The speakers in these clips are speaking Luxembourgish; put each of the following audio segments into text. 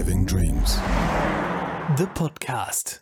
Driving Dreams. De Podcast.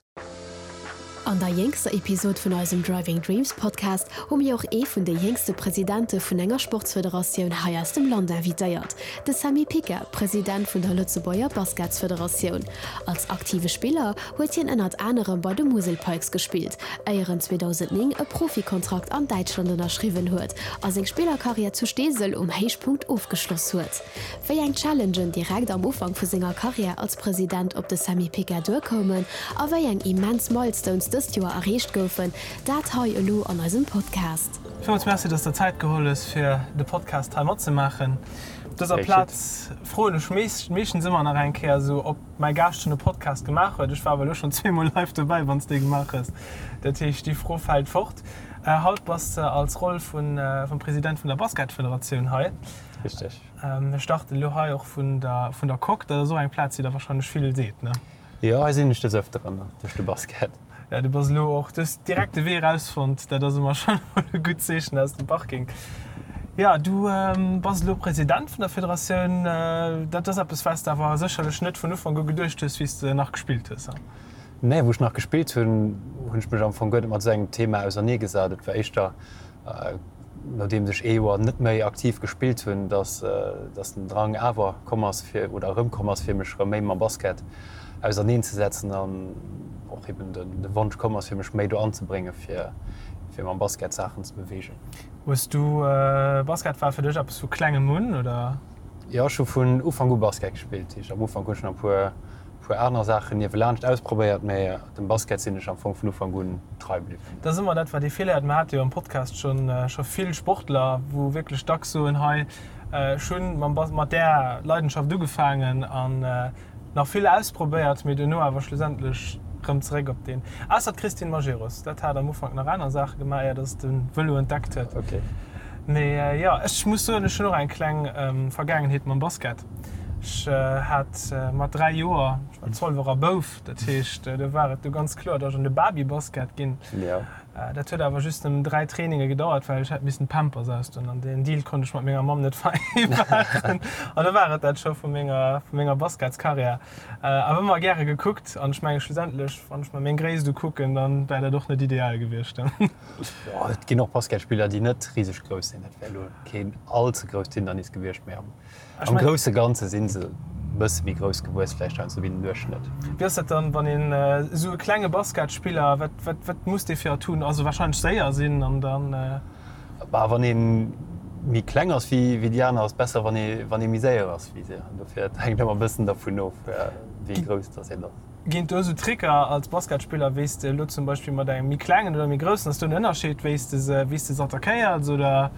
An der jéngster Episod vun eisem Driving Dreams Podcast hu mir och ee vun de jéngste Presidente vun enger Sportsfederatioun hei aus dem Land invitéiert, de Sammy Picker, President vun der Lëtzebuerger Basketsfederatioun. Als aktive Spiller huet hien ënnert anerem bei de Musel Pikes gespillt, éier en 2009 e Profikontrakt an Däitschland ënnerschriwwen huet a seng Spillerkarriär zu Steesel um Héichpunkt ofgeschloss huet. Wéi eng Challengen direkt am Ufank vu senger Karriär als President op de Sammy Picker duerkoumen a wéi eng immens Milestones dëst Joer erreecht goufen, dat hei elo an eisem Podcast. Villmools Merci, dass de Zäit geholl hues fir de Podcast hei matzemaachen. Op dëser Plaz froen ech meeschtens ëmmer nach eng Kéier esou, ob mäi Gaascht schonn e Podcast gemaach huet. Ech war awer elo schonn zweemol live dobäi, wann s de ee gemaach hues. Dat heescht, déi Fro fält fort. Haut bass de als Roll vum President vun der Basketfederatioun hei. Richteg. Mir starten elo hei och vun der vun der Coque. Dat ass och eng Plaz, déi der wahrscheinlech vill seet, ne? Jo, hei sinn ech des Ëfteren duerch de Basket. Ja, du bass elo och, du hues direkt de Wee erausfonnt, dat ass ëmmer schonn emol e gutt Zeechen aus dem Parking. Jo, du bass elo President vun der Federatioun. Dat ass eppes, wat s de awer sécherlech net vun Ufank u geduecht hues, wéi s de nach gespillt hues, he? Nee, wou ech nach gespillt hunn, hunn ech mech am Fong guer net mat esou engem Thema auserneegesat. Et war éischter, nodeems ech ee Joer net méi aktiv gespillt hunn, dass dass den Drang awer komm ass fir, oder erëmkomm ass, fir mech erëm méi mam Basket auserneenzesetzen an och eben de de Wonsch komm ass, fir mech méi do anzebréngen, fir fir mam Basket Saachen ze beweegen. Hues du, Basket war fir dech eppes vu klengem un, oder? Jo, ech hu vun Ufank u Basket gespillt. Dat heescht, am Ufank hunn ech nach e puer puer aner Saachen niewelaanscht ausprobéiert, mä dem Basket sinn ech am Fong vun Ufank un trei bliwwen. Dat ass ëmmer dat, wat ee vill héiert. Mir hate jo am Podcast schonn scho vill Sportler, wou wierklech dacks soen, hei, ech hunn mam Bas mat där Leidenschaft ugefaangen an nach vill ausprobéiert, mee duerno awer schlussendlech rëm zeréck op deen. Ausser d'Christine Majerus, dat hat am Ufank nach aner Saache gemaach, éier datt se de Vëlo entdeckt huet. Mee jo, ech muss soen, ech hunn och eng kleng Vergaangenheet mam Basket. Ech hat mat 3 Joer, ech war Zolwerer Bouf, dat heescht do war et du ganz kloer, datt ech an de Babybasket ginn. Dat huet awer just nëmmen 3 Traininge gedauert, well ech hätt missen d'Pampers ausdoen an deen Deal konnt ech mat menger Mamm net vereinbaren. An da war et dat scho vu menger, vu menger Basketskarriär. Awer ëmmer gäre gekuckt an ech menge schlussendlech, wann ech mer meng Gréisst ukucken, dann wär dat och net ideal gewiescht. Et ginn och Basketspiller, déi net riseg grouss sinn. Dat wär elo keen all ze grousst Hindernis gewiescht, mee am Am grousse Ganze si se e bësse méi grouss gewuess, vläicht heiansdo wéi den Duerchschnëtt. Wéi ass dat dann, wann een esou e klenge Basketspiller, wat, wat, wat muss dee fir Atouren, also warscheinlech séier sinn an dann. Bah, wann ee méi kleng ass wéi déi aner, ass besser, wann ee, wann ee méi séier ass wéi si. Dofir, et hänkt ëmmer e bëssen dervun of, wéi grouss dass een ass. Ginn et do esou Tricker als Basketspiller, wéi s de elo zum Beispill mat engem méi klengen oder méi groussen, ass do en Ënnerscheed, wéi s de se, wéi s de se attackéiers oder?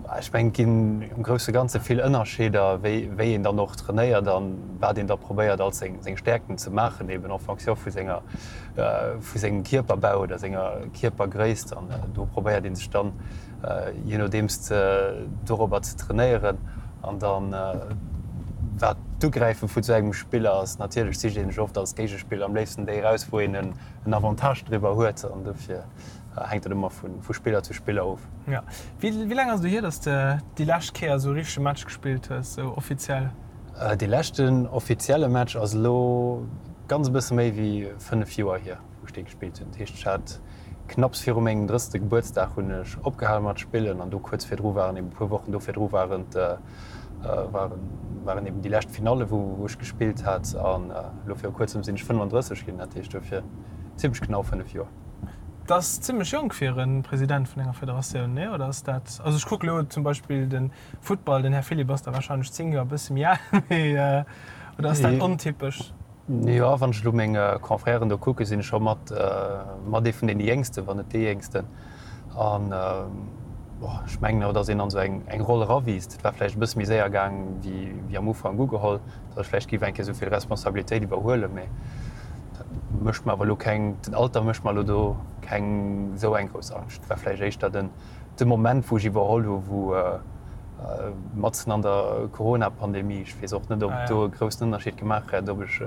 Ech mengen, et ginn am grousse Ganze vill Ënnerscheeder, wéi, wéi een dann och trainéiert an wat een da probéiert als seng, seng Stäerkten ze maachen, eben en fonction vu senger, vu sengem Kierperbau oder senger Kierpergréisst. An do probéiert ee sech dann, je nodeems dorobber ze trainéieren an dann wat d'Ugräife vu sou engem Spiller ass. Natierlech sicht ee sech oft als Géigespiller am léifsten déi eraus, wou een en Avantage driwwer huet an dofir hänkt dat ëmmer vu Spiller zu Spiller of. Jo. Wéi laang ass et elo hier, datt s de déi lescht Kéier esou e richtege Match gespillt hues, esou offiziell? Dee leschten offizielle Match ass elo ganz e bësse méi wéi 5 Joer hier. wou ech dee gespillt hunn. Dat heescht, ech hat knapps viru mengem drësste Gebuertsdag hunn ech opgehale mat spillen an do kuerz virdru waren eben e puer Wochen do virdru waren waren waren eben déi lescht Finalle wou wou ech gespillt hat an elo viru kuerzem sinn ech 35 ginn, dat heescht dofir zimmlech genau 5 Joer. Dat ass zimmlech jonk fir e President vun enger Federatioun, nee? Oder ass dat, also ech kucke elo zum Beispill de Futtball, den Här Philipp ass da warscheinlech 10 Joer e bësse méi al, mee oder ass dat ontypesch? Jo, wann ech elo meng Confrèren do kucken, sinn ech scho mat mat ee vun deene Jéngsten, wann net dee Jéngsten. An ech mengen awer, datt een an esou eng eng Roll erawiisst. Et war vläicht e bësse méi séier gaang wéi wéi am Ufank ugeholl, datt ech vläicht géif eng Kéier esou vill Responsabilitéit iwwerhuelen. Mee dat mécht mer awer elo keng, den Alter mécht mer elo do keng esou eng grouss Angscht. Et war vläicht éischter den De Moment, wou ech iwwerholl hu wou matzen an der Corona-Pandemie, ech weess och net, ob et do e groussen Ënnerscheed gemaach hätt, ob ech,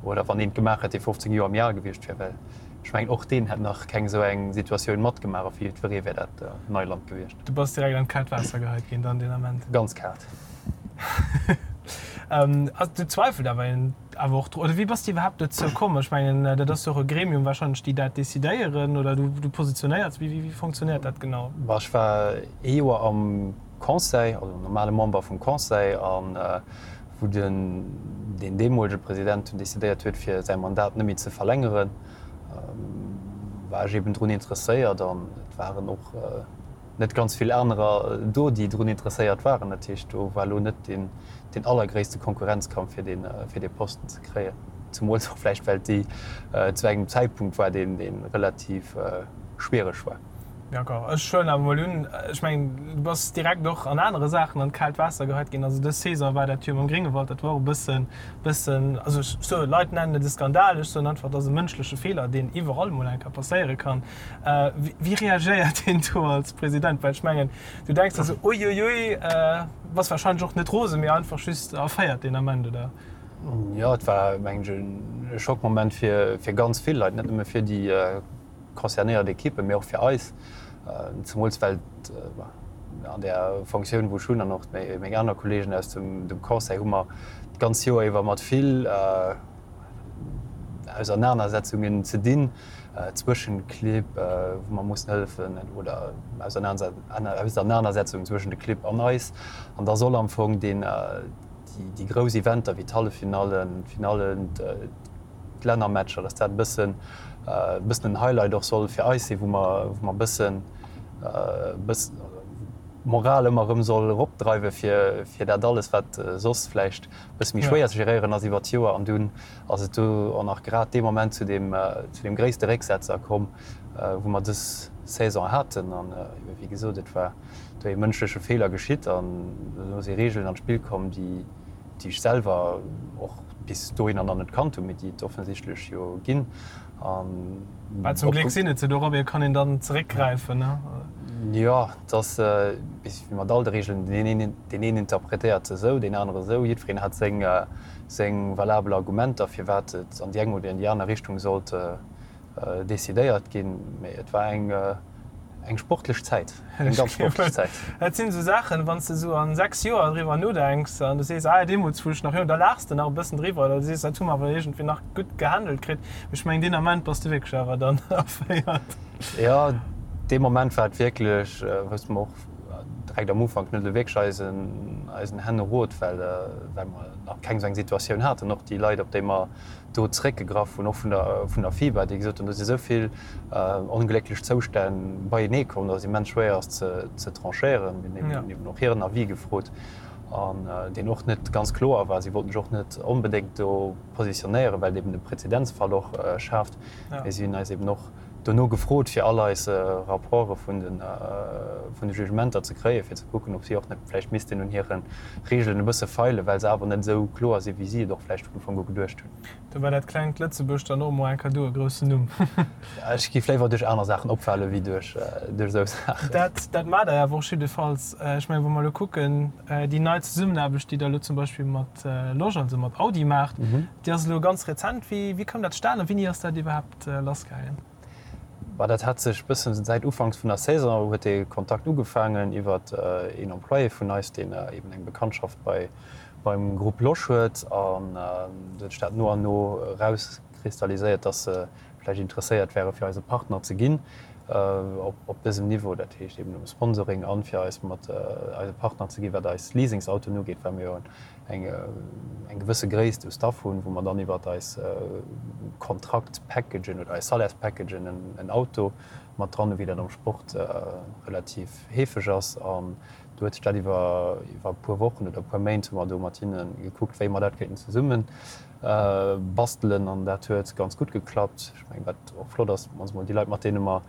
oder wann een et gemaach hätt, dee 15 Joer méi al gewiescht wier, well ech mengen, och deen hätt nach keng esou eng Situatioun matgemaach a fir jiddweree wär dat Neiland gewiescht. Du bass direkt an d'kaalt Waasser geheit ginn dann deen Ament? Ganz kaalt. Du zweifelt awer een. awer och, oder wéi bass de iwwerhaapt dozou komm? Ech mengen, dat ass jo och e Gremium wahrscheinlech, déi dat decidéieren, oder du, du positionéiers. Wéi, wéi fonctionnéiert dat genau? Bah, ech war ee Joer am Conseil, also normale Member vum Conseil, an wou den, deen deemolege President dunn decidéiert huet, fir säi Mandat net méi ze verlängeren, war ech eben drun interesséiert an et waren och net ganz vill anerer do, déi drun interesséiert waren. Dat heescht, do war elo net deen, deen allergréisste Konkurrenzkampf, fir deen, fir dee Posten ze kréien. Zemools och vläicht, well déi zu engem Zäitpunkt war, deen, dee relativ schwiereg war. D'accord. Ech huelen awer mol un, ech mengen, du bass direkt och an anere Saachen an d'kaalt Waasser geheit ginn. Also dës Saison war dat jo mam Gréngewald, dat war och e bëssen, bëssen, also ech soen, Leit nennen et e Skandal, ech soen einfach, et ass e mënschleche Feeler, deen iwwerall mol eng Kéier passéiere kann. Wéi reagéiert een do als President? Well ech mengen, du denks der sou, Uiuiui, bass warscheinlech och net rosen, mee einfach just erféiert deen Ament, oder? Jo, et war, mengen ech, e Schockmoment fir ganz vill Leit, net nëmme fir déi concernéiert Ekippen, mee och fir eis, zemools well an där Fonctioun, wou ech hunn, an och meng aner Kolleegen aus dem Conseil, hu mer d'ganz Joer iwwer mat vill Ausernanersetzungen ze dinn zwëschen Clibb, wou mer mussen hëllefen, oder Ausernanersetzungen zwëschen de Clibb an eis. An da soll am Fong déi grouss Eventer wéi d'Halleffinallen, d'Finallen, d'Lännermatcher, dass dat e bëssen e bëssen en Highlight och soll fir eis sinn, wou mer wou mer e bëssen e bëssen d'Moral ëmmer erëm soll eropdreiwe fir fir dat alles, wat soss vläicht e bësse méi schwéier ze geréieren ass iwwert d'Joer. An dunn ass et do och nach grad dee Moment zu deem zu deem gréisste Récksetzer komm, wou mer dës Saison haten. An ebe wéi gesot, et war do ee mënschleche Feeler geschitt an do si Regeln an d'Spill komm, déi déi ech selwer och bis dohinner nach net kannt hunn, mee déi et offensichtlech jo ginn. An Well zum Gléck sinn et se, dorobber kann een dann zeréckgräifen, ne? Jo, et ass wéi mat all de Regeln, deen een, deen een interpretéiert se esou, deen anere esou. Jiddwereen hat seng, seng valabel Argumenter, firwat et an déi eng oder an déi aner Richtung sollt decidéiert ginn, mee et war eng eng sportlech Zäit, eng ganz sportlech Zäit. Dat sinn esou Saachen, wann s de esou an 6 Joer driwwer nodenks an du sees, ah deemools wou ech nach jonk, da laachs de nach e bëssen driwwer oder du sees, dat hu mer awer iergendwéi nach gutt gehandelt kritt. Mee ech mengen deen Ament bass de wierklech awer dann erféiert. Jo, dee Moment war et wierklech, wousste mer och direkt am Ufank net elo wierklech eisen eisen Hännerot, well well mer nach keng esou eng Situatioun haten. Och déi Leit, op déi mer do zeréckgegraff hunn, och vun der vun der FIBA, déi gesot hunn, do si sou vill onglécklech Zoustänn beienee komm, datt et immens schwéier ass ze ze tranchéieren. Mir hunn eben och hiren Avis gefrot an deen och net ganz kloer war. Si wollten sech och net onbedéngt do positionéieren, well et eben e Präzedenzfall och schaaft. Mee si hunn eis eben och dono gefrot, fir all eis Rapporte vun de vun de Jugementer ze kréien, fir ze kucken, ob si och net vläicht missten un hire Regeln e bësse feilen, well se awer net esou kloer sinn, wéi si et och vläicht vun Ufank u geduecht hunn. Do war dat klengt Lëtzebuerg dann och emol eng Cadeau, e groussen Numm. Ech géif léiwer duerch aner Saachen opfale wéi duerch esou Saachen. Dat dat maacht Der awer och jiddefalls. Ech mengen, wa mer elo kucken, déi nei Zesummenaarbecht, déi Der elo zum Beispill mat Losch, also mat Audi maacht, déi ass elo ganz rezent. Wéi wéi koum dat zustane a wéini ass dat iwwerhaapt lassgaangen? Bah, dat hat sech bëssen säit Ufanks vun der Saison huet dee Kontakt ugefaangen iwwert een Employé vun eis, deen eben eng Bekanntschaft bei beim Groupe Losch huet. An do huet sech dat no an no erauskristalliséiert, dass se vläicht interesséiert wäre fir eise Partner ze ginn op op dësem Niveau, dat heescht eben um Sponsoring an fir eis mat eise Partner ze ginn, wat eis Leasingsautoen ugeet, well mir jo eng eng gewësse Gréisst u Staff hunn, wou mer dann iwwert eis Kontraktpackagen oder eis Salärspackagen en Auto mat dran hunn, wéi dat am Sport relativ heefeg ass. An do huet sech dat iwwer iwwer e puer Wochen oder e puer Méint hu mer do mat hinne gekuckt, wéi mer dat kéinten zesumme bastelen. An dat huet ganz gutt geklappt. Ech mengen, wat och flott ass, also mol déi Leit, mat deene mer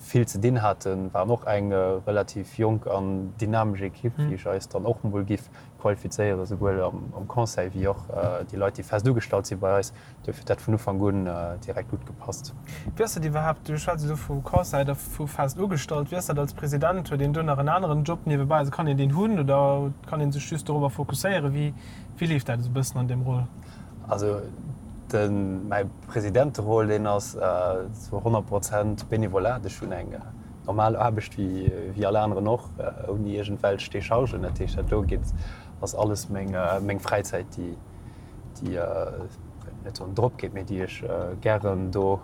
vill ze dinn haten, waren och eng relativ jonk an dynamesch Ekipp, wéi ech eis dann och mol giff qualifizéieren, esouwuel am Conseil wéi och déi Leit, déi fest ugestallt si bei eis. Duerfir huet dat vun Ufank un direkt gutt gepasst. Wéi ass dat iwwerhaapt, du schwätz elo vu Conseil a vu fest ugestallt, wéi ass dat als President? Huet een do nach en aneren Job niewebäi? Also kann een deen hunn oder kann ee sech just dorobber fokusséieren? Wéi leeft dat esou e bëssen an deem Rôle? Also de mäi Presidenteroll, deen ass zu 100 Prozent Benevolat. Ech hunn eng normal Aarbecht wéi all aneren och, ouni iergendwelch Dechargen. Dat heescht, dat do geet, ass alles meng Fräizäit, déi. Déi net soen drop geet, mee déi ech gären do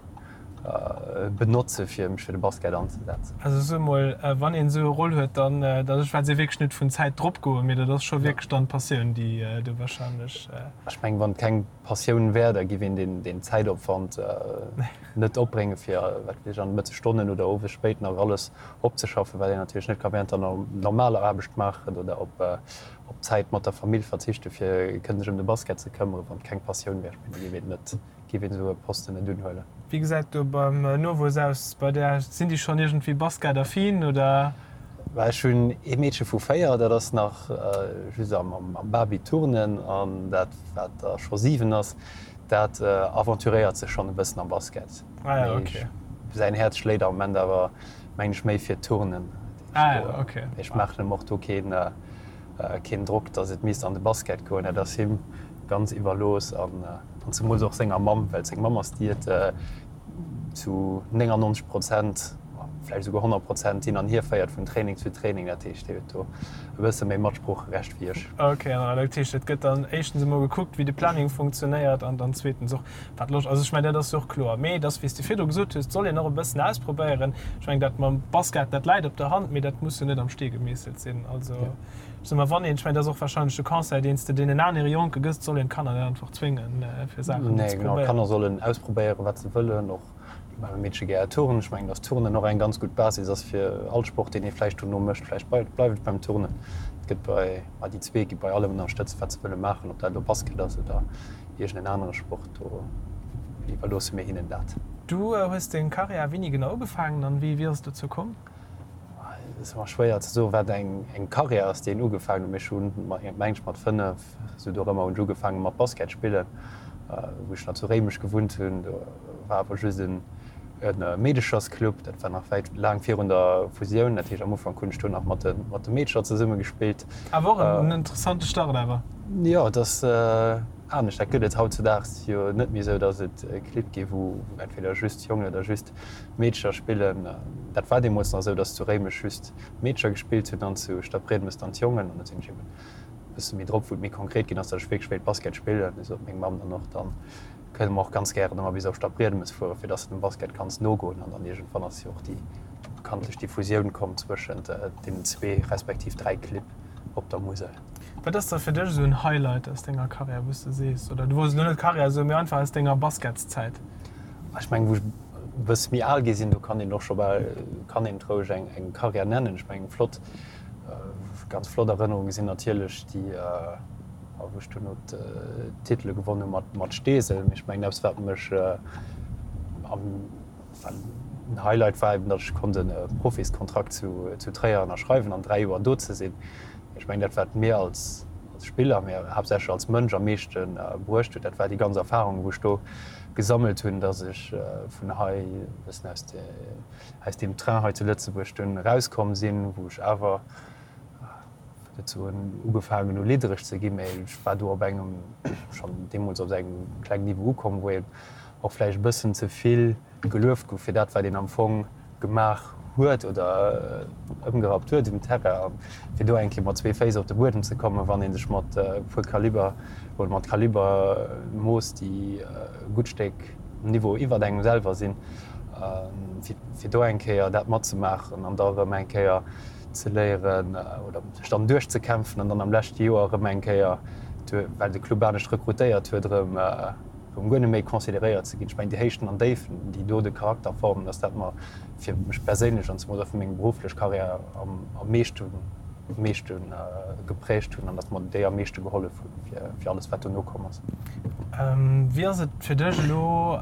benotze fir mech fir de Basket anzesetzen. Also soe mol, wann een esou e Roll huet, dann, also ech schwätze wierklech net vun Zäit drop goen, mee dat ass scho wierklech dann d'Passioun, déi do wahrscheinlech. Ech mengen, wann et keng Passioun wär, da giff een deen Zäitopwand net opbréngen, fir, wat weess ech, an de Mëttesstonnen oder owes spéit nach alles opzeschaffen, wat een natierlech net ka während der normaler Aarbecht maachen oder op Op Zäit mat der Famill verzichte fir kënnen sech ëm de Basket ze këmmeren, wann et keng Passioun wär. Ech mengen, da géif een net, géif een esou e Posten net unhuelen. Wéi gesäit do beim Nowuess aus bei där? Sinn déi schonn iergendwéi Basket-affin oder? Bah, ech hunn ee Meedche vu 4, dat ass nach just am Baby-Turnen an dat wat da scho 7 ass, dat aventuréiert sech schonn e bëssen am Basket. Ah ja, okay. Mee säin Häerz schléit am Moment awer, mengen ech, méi fir d'Turnen. Ah ja, okay. Ech maachen em och do keen, keen Drock, dass et misst an de Basket goen. Dat ass him ganz iwwerlooss an, an zemools och senger Mamm, well seng Mamm ass déi et zu 99 Prozent, vläicht esouguer 100 Prozent hin an hier féiert vun Training zu Training. Dat heescht, déi huet do e bësse méi Matsproocherecht wéi ech. Okay, an dat heescht, et gëtt dann éischtens emol gekuckt, wéi de Planning funktionéiert an dann zweetens och, Wat Loscht, also ech mengen, dat ass jo och kloer. Mee et ass, wéi s de virdru gesot hues, et soll een och e bëssen ausprobéieren. Ech mengen, dat mam Basket, dat läit op der Hand, mee dat muss jo net am Stee gemeesselt sinn. Also ech soe mar, wann een, ech mengen, dat ass och warscheinlech de Conseil, deen s de deenen anere Jonke gëss, et soll een d'Kanner net einfach zwéngen, fir Saachen ze Nee, genau, probéieren. d'Kanner sollen ausprobéieren, wat se wëllen. Och Well Meedche gär turnen. Ech mengen, dass Turnen och eng ganz gutt Basis ass fir all Sport, deen ee vläicht dono mécht. Vläicht bleift et beim Turnen. Et gëtt bei, ma déi zwee gi bei allem ënnerstëtzt, wat se wëlle maachen, ob dat elo Basket ass oder iergend en anere Sport. Do iwwerloosse mir hinnen dat. Du hues deng Karriär wéini genau ugefaangen an wéi ass et dozou komm? Et ass ëmmer schwéier ze soen, wat eng Karriär ass, déi een ugefaangen huet. Mee ech hunn, meng ech, mat 5, esou dorëmmer hunn ech ugefaange mat Basket spillen, wou ech nach zu Réimech gewunnt hunn. Do war awer just e Meedechersclub, dat war nach wäit laang virun der Fusioun. Dat heescht, am Ufank hunn ech do nach mat de Meedercher zesumme gespillt. Awer och en interessante Start awer. Jo, et ass anescht. Dat gëtt et hautzudaags jo net méi esou, datt et Clibb gi wou entweder just Jongen oder just Meedercher spillen. Dat war deemools nach esou, datt zu Réimech just d'Meedercher gespillt hunn an zu Stadbriedemes dann d'Jongen. An da sinn ech eben e bësse méi drop, wou et méi konkret ginn ass, datt ech wierklech wéilt Basket spillen. Du sot meng Mamm dann och, dann kënne mer och ganz gären ëmmer bis op Stadbriedemes fueren, fir datt s de dem Basket kanns nogoen. An dann iergendwann ass jo och déi bekanntlech déi Fusioun komm zwëschent deenen zwee respektiv dräi Clibb op der Musel. Wat ass da fir dech esou en Highlight aus denger Karriär, wou s de sees, oder du wolls elo net Karriär soen, mee einfach aus denger Basketszäit? Ech mengen, wou ech e bësse méi al gi sinn, do kann een och scho bal, kann een et roueg eng, eng Karriär nennen. Ech mengen, flott, ganz flott Erënnerunge sinn natierlech déi, wou ech duerno d'Titele gewonn hu mat, mat Steesel. Mee ech mengen, eppes wat mech am, wat en Highlight war eben, datt ech konnt e Profiskontrakt zu, zu Tréier ënnerschreiwen an 3 Joer do ze sinn. Ech mengen, dat wat mir als, als Spiller, mee haaptsächlech als Mënsch am meeschte bruecht huet, dat war déi ganz Erfahrung, wou ech do gesammelt hunn, dass ech vun hei e bëssen aus de, aus deem Train hei zu Lëtzebuerg dunn erauskomm sinn, wou ech awer, net soen ugefaangen hu liddereg ze ginn, mä ech war do op engem, schonn deemools op engem klengen Niveau ukomm, wou een och vläicht e bëssen ze vill gelueft gouf fir dat, wat een am Fong gemaach huet oder ëmgerappt huet um Terrain. A fir do eng Kéier mat zwee Féiss op de Buedem ze kommen, wann ee sech mat e puer Kaliber oder mat Kaliber moosst, déi e gutt Stéck Niveau iwwert engem selwer sinn, fir do eng Kéier dat matzemaachen an da erëm eng Kéier ze léieren oder sech dann duerchzekämpfen an dann am leschte Joer erëm eng Kéier, well de Club anescht rekrutéiert huet, erëm erëm guer net méi consideréiert ze ginn. Ech mengen, déi Héichten an Déifen, déi do de Charakter formen, dass dat mer fir mech perséinlech an zemools och fir meng berufflech Karriär am meeschte meeschte geprägt hunn an dass mer déi am meeschte gehollef hunn fir fir alles, wat dono komm ass. Wéi ass et fir dech elo,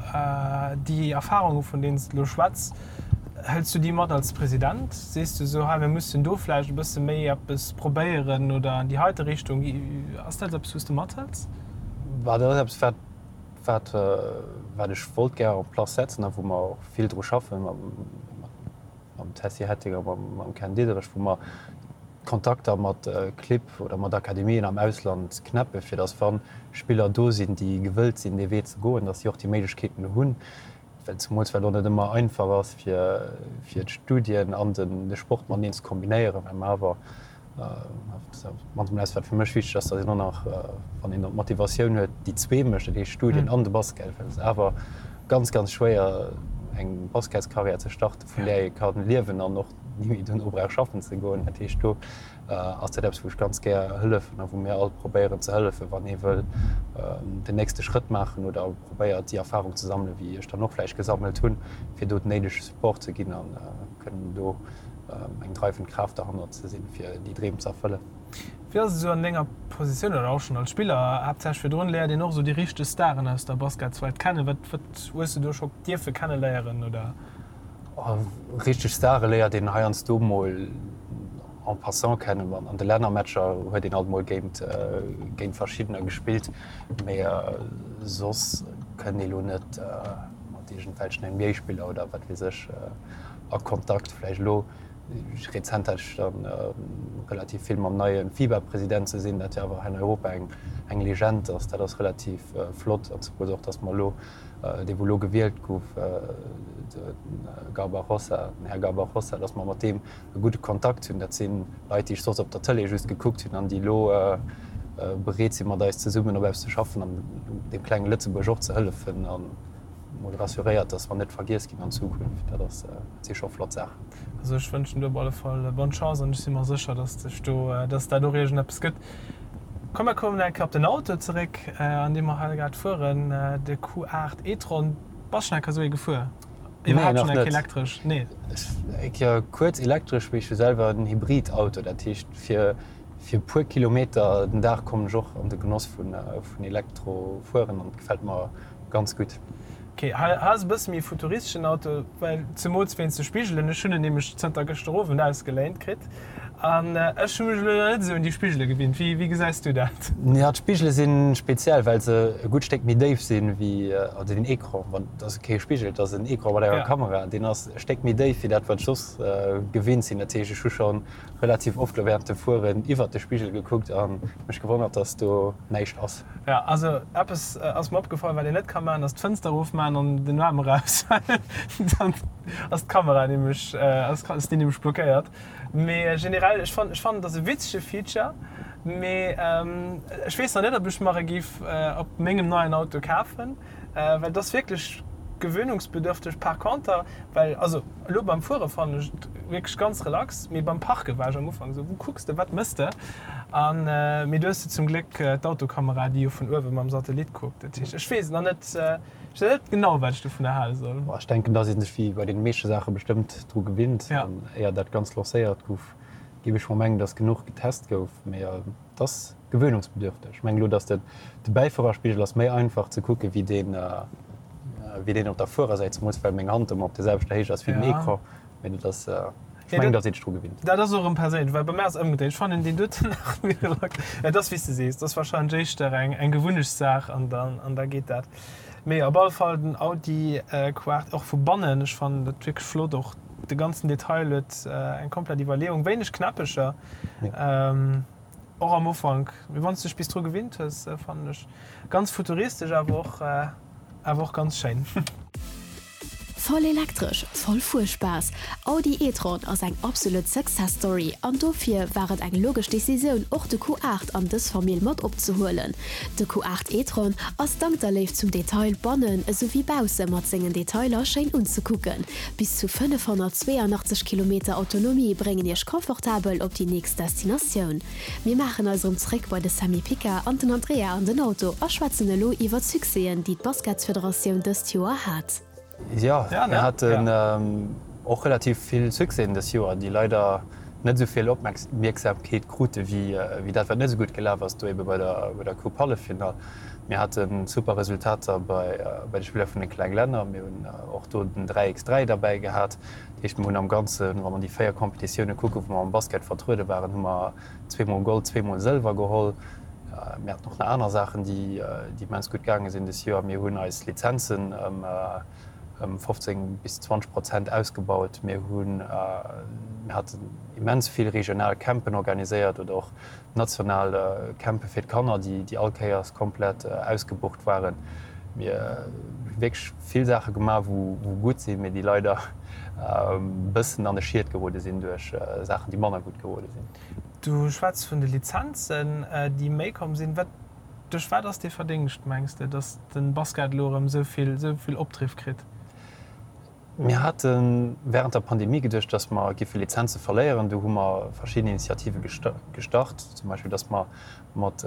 déi Erfarunge vun deenen s de elo schwätz, hëls du déi mat als President? Sees du esou, hei mir mussen do vläicht e bësse méi eppes probéieren oder an déi heite Richtung? Ass dat eppes, wou s de mathëls? Bah, dat ass eppes, wat, wat, wat ech wollt gär en place setzen a wou mer och vill dru schaffen, mam, mam Tessy Hetting a mam, mam Ken Diederich, wou mer Kontakter mat Clibb oder mat Akademien am Ausland knäppen, fir datt wa Spiller do sinn, déi gewëllt sinn, dee Wee ze goen, datt si och déi Méiglechkeeten hunn, well zemools well och net ëmmer einfach ass, fir, fir d'Studien an den, de Sport mateneen ze kombinéieren, well mer awer. Mannst mol eppes wat fir mech wichteg ass, datt een och nach, wann een dann d'Motivatioun huet, déi zwee mécht, dat heescht Studien an de Basket, well et ass awer ganz, ganz schwéier eng Basketskarriär ze starten, vun där ee ka liewen an och ni méi dono brauch schaffen ze goen. Dat heescht do ass dat eppes wou ech ganz gär hëllefen a wou mir all probéieren ze hëllefen, wann ee wëll den nächste Schrëtt maachen oder probéiert déi Erfahrung ze sammelen, wéi ech dann och vläicht gesammelt hunn, fir do den néidege Support ze ginn a kënnen do eng dreiwend Kraaft derhannert ze sinn, fir déi Dreem ze erfëllen. Wéi ass et esou an denger Positioun oder och schonn als Spiller, haaptsächlech virdrun, léiert een och esou déi richteg Staren aus der Basketswelt kennen. Wat wat hues de do scho dierfe kenneléieren oder? Richteg Stare léiert een heiansdo mol en passant kennen. An de Lännermatcher huet een alt mol géint géint verschiddener gespillt, mee soss kënnt ee lo net mat iergendwelchen NBA-Spiller oder wat weess ech a Kontakt. Vläicht elo rezent hat ech dann relativ vill mam neie FIBA-President ze sinn, dat jo awer hei an Europa eng eng Legend ass. Dat ass relativ flott an zemools och, datt mer elo, dee wou elo gewielt gouf, de Garbajosa, den Här Garbajosa, datt mer mat deem e gudde Kontakt hunn. Dat si Leit, déi ech soss op der Tëlee just gekuckt hunn an déi elo bereet sinn, mat eis zesummen op eppes ze schaffen an deem klenge Lëtzebuerg och ze hëllefen. Mol rassuréiert, dass mer net vergiess ginn an Zukunft. Dat ass, dat si scho flott Saachen. Also ech wënschen dir op alle Fall bonne Chance an ech si mer sécher, dass dech do, dass dat och iergendeppes gëtt. Komm mer kommen eng Kéier op den Auto zeréck, an deem mer hei grad fueren, de Q8 e-tron. Bass schonn eng Kéier esou ee gefuer? Nee, Iwwerhaapt nach schonn eng Kéier net. elektresch? Nee. Eng Kéier kuerz elektresch, mee ech hu selwer en Hybridauto. Dat heescht, fir fir e puer Kilometer den Dag kommen ech och an de Genoss vun vun Elektro fueren an et gefält mer Ganz gutt. Ok, hei ass e bësse méi futuristeschen Auto, well zemools wéinst de Spigelen. Ech hunn en nämlech zënter gëschter Owend ausgeléint kritt an ech hu mech elo nach net esou un déi Spigele gewinnt. Wéi wéi gesäis du dat? Jo, d'Spigele si speziell, well se e gutt Stéck méi déif sinn wéi, also den Ecran, wann, et ass kee Spigel, et ass en Ecran mat enger Kamera, deen ass e Stéck méi déif wéi dat, wat ech soss gewinnt sinn. Dat heescht, ech hu scho relativ oft elo während dem Fueren iwwert de Spigel gekuckt a mech gewonnert, dass do näischt ass. Jo, also eppes ass mer opgefall, wat een net ka maachen, ass d'Fënster erofmaachen an den Aarm eraus, well dann ass d'Kamera nämlech, ass déi nämlech blockéiert. Mee generell, ech fannen, ech fannen, et ass e witzege Feature, mee ech weess nach net, ob ech mer e géif op mengem neien Auto kafen, well et ass wierklech gewöhnungsbedürfteg. Par conter, well, also elo beim Fuere fannen ech et wierklech ganz relax, mee beim Parke war ech am Ufank esou, wou kucks de, wat mëss de? An, mee du hues jo zum Gléck d'Autokamera, déi jo vun uewe mam Satellit kuckt. Dat heescht, ech weess nach net, ech weess net genau, wat ech dovunner hale soll. Ech denken, dass ee sech wéi bei deene meeschte Saache bestëmmt dru gewinnt. An éier dat Ganzt lancéiert gouf, géif ech mol mengen, dass genuch getest gouf. Mee et ass gewöhnungsbedürfteg. Ech mengen elo, dass de Bäifuererspigel ass méi einfach ze kucke wéi deen, wéi deen op der Fuerersäit, zemools well meng Hand ëmmer op der selwechter Héicht ass wéi den Ecran. Mee dat ass, ech mengen, datt ee sech dru gewinnt. Dat ass och erëm perséinlech, well bei mär ass et ëmgedréit. Ech fannen deen doten nach méi relax. Et ass wéi s de sees, et ass warscheinlech éischter eng, eng Gewunnechtssaach an dann, an da geet dat. Mee op alle Fall den Audi Q8, och vu bannen, ech fannen dat wierklech flott, och de ganzen Detail huet eng komplett Iwwerleeung, wéineg Knäppecher och am Ufank, mee wann s de dech bis dru gewinnt hues, fannen ech ganz futuristesch, awer och, awer och ganz schéin. Voll elektresch, voll Fuerspaass, Audi e-tron ass eng absolut Success Story an dofir war et eng logesch Decisioun och de Q8 an dës Famill mat opzehuelen. De Q8 e-tron ass dank der Léift zum Detail bannen esou wéi bausse mat sengen Detailer schéin unzekucken. Bis zu 582 Kilometer Autonomie bréngen iech confortabel op déi nächst Destinatioun. Mir maachen eis erëm zréck bei de Sammy Picard an den Andrea an den Auto a schwätzen elo iwwer d'Succèsen, déi d'Basketsfederatioun dëst Joer hat. Jo, mir haten och relativ vill Succèsen dës Joer, déi leider net esou vill Opmierksamkeet krute wéi dat, wat net esou gutt gelaf ass, do ebe bei der Coupe Halleffinall. Mir hate super Resultater bei de Spiller vun de kleng Länner. Mir hunn och do den 3 x 3 derbäi gehat. Dat heescht, mir hunn am Ganzen, wa mer déi 4 Competitioune kucken, wou mer am Basket vertruede waren, hu mer zweemol Gold, zweemol Sëlwer geholl. Mir haten och nach aner Saachen, déi immens gutt gaange sinn dës Joer. Mir hunn eis Lizenzen ëm 15 bis 20 Prozent ausgebaut. Mir hunn, mir haten immens vill regional Campen organiséiert oder och national Campe fir d'Kanner, déi all Kéiers komplett ausgebucht waren. Mir hu wierklech vill Saache gemaach, wou gutt sinn, mee déi leider e bëssen an de Schiet gerode sinn duerch Saachen, déi manner gutt gerode sinn. Du schwätz vun de Lizenzen, déi méi komm sinn. Wat, duerch wat ass dee Verdéngscht, mengs de, datt de Basket elo erëm esou vill, esou vill Opdriff kritt? Mir hate wärend der Pandemie geduecht, datt mer giffe Lizenze verléieren. Do hu mer verschidden Initiative gestart, zum Beispill datt mer mat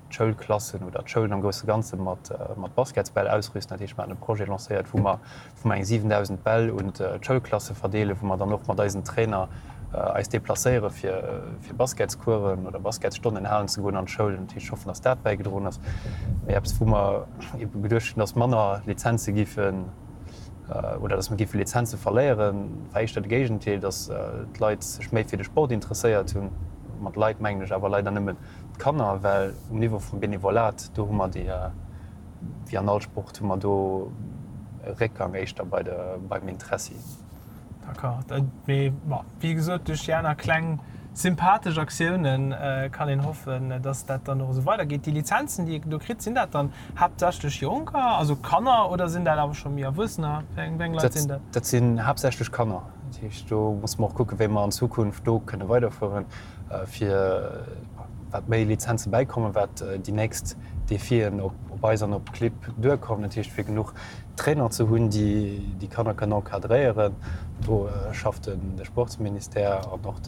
d'Schoulklassen oder d'Schoulen am grousse Ganze mat Basketsbäll ausrüsten. Dat heescht, mer haten e Projet lancéiert, wou mer wou mer eng 7.000 Bäll un d'Schoulklasse verdeelen, wou mer dann och mat eisen Trainer eis deplacéiere fir fir Basketscoursen oder Basketsstonnen halen ze goen an d'Schoulen. Dat heescht, ech hoffen, datt dat bäigedroen ass. Mee eppes, wou mer ebe geduecht hunn, datt manner Lizenze giffen oder datt mer giffe Lizenze verléieren, war éischter de Géigendeel, datt d'Leit sech méi fir de Sport interesséiert hunn. Mat Leit mengen ech awer leider nëmmen d'Kanner, well um Niveau vum Benevolat, do hu mer déi, wéi an all Sport, hu mer do e Réckgang éischter bei de, beim Interessi. D'accord. Mee bon, wéi gesot, duerch déi aner kleng sympathesch Aktiounen kann een hoffen, dass dat dann och esou weidergeet. Déi Lizenzen, déi ee do kritt, sinn dat dann haaptsächlech Jonker, also Kanner, oder sinn dat awer scho méi Erwuessener? Wéi eng Leit sinn dat? Dat sinn haaptsächlech Kanner. Dat heescht, do musse mer och kucken, wéi mer an Zukunft do kënne weiderfueren. fir wat méi Lizenze bäikommen, wat déi nächst Defien op eis an op d'Clibb duerkommen. Dat heescht, fir genuch Trainer ze hunn, déi déi Kanner kënnen encadréieren. Do schafft de Sportsministère an och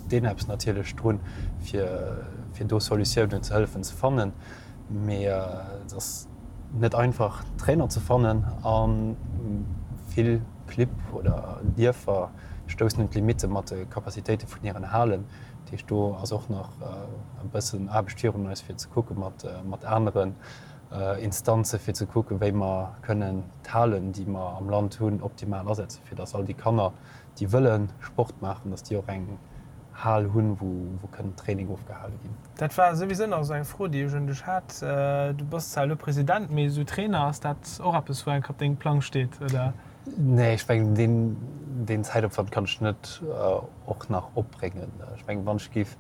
d'ENEPS natierlech drun, fir do Solutiounen ze hëllefen ze fannen. Mee et ass net einfach, Trainer ze fannen a vill Clibb oder Dierfer stoussen un d'Limitte mat de Capacitéite vun hiren Halen. Dat heescht, do ass och nach e bëssen Aarbecht virun eis, fir ze kucke mat aneren Instanze fir ze kucken, wéi mer kënnen d'Halen, déi mer am Land hunn, optimal asetzen, fir datt all déi Kanner, déi wëlle Sport maachen, datt déi och eng Hal hunn, wou kënnen Training ofgehale ginn. Dat war souwisou nach esou eng Fro, déi ech un dech hat. Du bass zwar elo President, mee esou Trainer, ass dat och eppes, wou enk op dengem Plang steet, oder? Nee, ech mengen deen, deen Zäitopwand kann ech net och nach opbréngen. Ech mengen, wann ech géif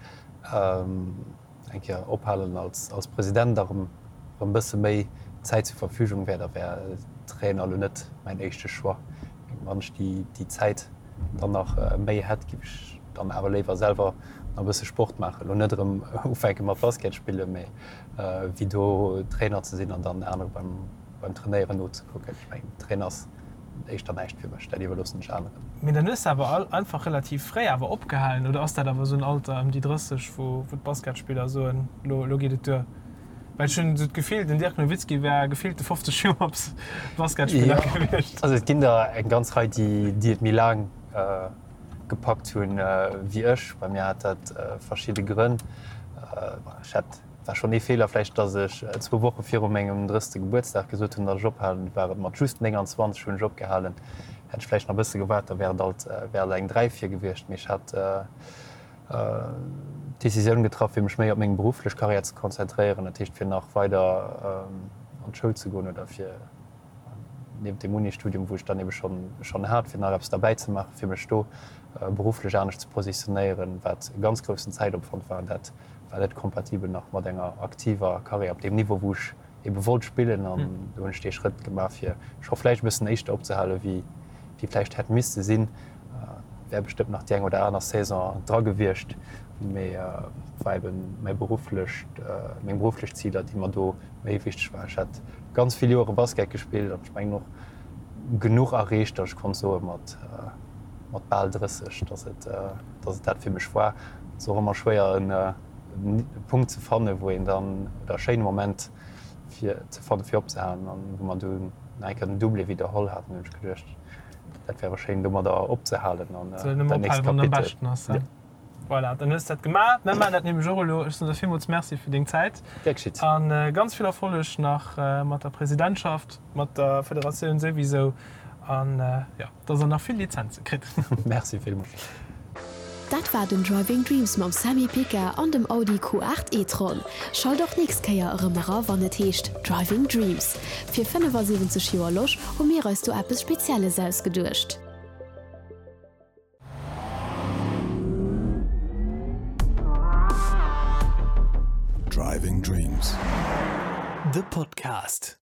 eng Kéier ophalen als, als President a rëm, rëm bësse méi Zäit zur Verfügung wär, da wär Trainer elo net mäin éischte Choix. Wann ech déi, déi Zäit dann nach méi hätt, géif ech dann awer léiwer selwer nach e bësse Sport maachen. Elo net erëm ufänke mat Basket spillen, mee wéi do Trainer ze sinn an dann anere beim, beim Trainéieren nozekucken. Ech mengen, Trainer ass éischter näischt fir mech, dat iwwerloossen ech aneren. Mee dann hues de awer all einfach relativ fréi awer opgehalen, oder ass dat awer esou en Alter ëm déi 30, wou wou d'Basketspiller soen, lo lo geet et duer? Well ech hunn esou d'Gefill, den Dirk Nowitzki wär gefillte 50 Joer Basketspiller gewiescht. Also et ginn der eng ganz Rei, déi déi et méi laang gepackt hunn wéi ech. Bei mir hat dat verschidde Grënn. Ech hat War schonn ee Feeler vläicht, dass ech zwou Woche viru mengem drësste Gebuertsdag gesot hunn, dass ech ophalen. War et mat just 29 hunn ech opgehalen. Hätt ech vläicht nach e bësse gewaart, da wär et alt wär alt eng 3 vir gewiescht. Mee ech hat d'Decisioun getraff, fir mech méi op meng berufflech Karriär ze konzentréieren, dat heescht fir nach weider an d'Schoul ze goen oder fir niewent dem Uni-Studium, wou ech dann ebe schonn schonn hat, fir nach eppes derbäi ze maachen, fir mech do berufflech anescht ze positionéieren, wat e ganz groussen Zäitopwand war. An dat war net kompatibel nach mat enger aktiver Karriär op deem Niveau, wou ech ebe wollt spillen. An do hunn ech dee Schrëtt gemaach, fir scho vläicht e bëssen éischter opzehale wéi wéi vläicht hätt misste sinn. Wär bestëmmt nach déi eng oder aner Saison dra gewiescht, mee et war ebe mäi berufflecht, meng berufflech Ziler, déi mer do méi wichteg waren. Ech hat ganz vill Joere Basket gespillt an ech mengen och genuch erreecht, datt ech konnt soe mat mat bal 30, datt et datt et dat fir mech war. Et ass och ëmmer schwéier en Punkt ze fannen, wou een dann, oder e schéine Moment fir ze fannen, fir opzehalen. An wou mer dunn nach eng Kéier den Doublé widderholl haten, hunn ech geduecht, dat wär schéin domadder opzehalen an dat nächst Kapitel. Voilà, dann hues de dat gemaach. Mir maachen dat nämlech och elo. Ech soen der villmools Merci fir deng Zäit. Gär geschitt. A ganz vill Erfolleg nach mat der Presidentschaft, mat der Federatioun souwisou. An jo, dass der nach vill Lizenze kritt. Merci villmools. Dat war den Driving Dreams mam Sammy Picard an dem Audi Q8 e-tron. Schalt och nächst Kéier erëm era wann et heescht Driving Dreams. Fir 75 Joer Losch hu mir eis do eppes Spezielles ausgeduecht. Driving Dreams, the podcast.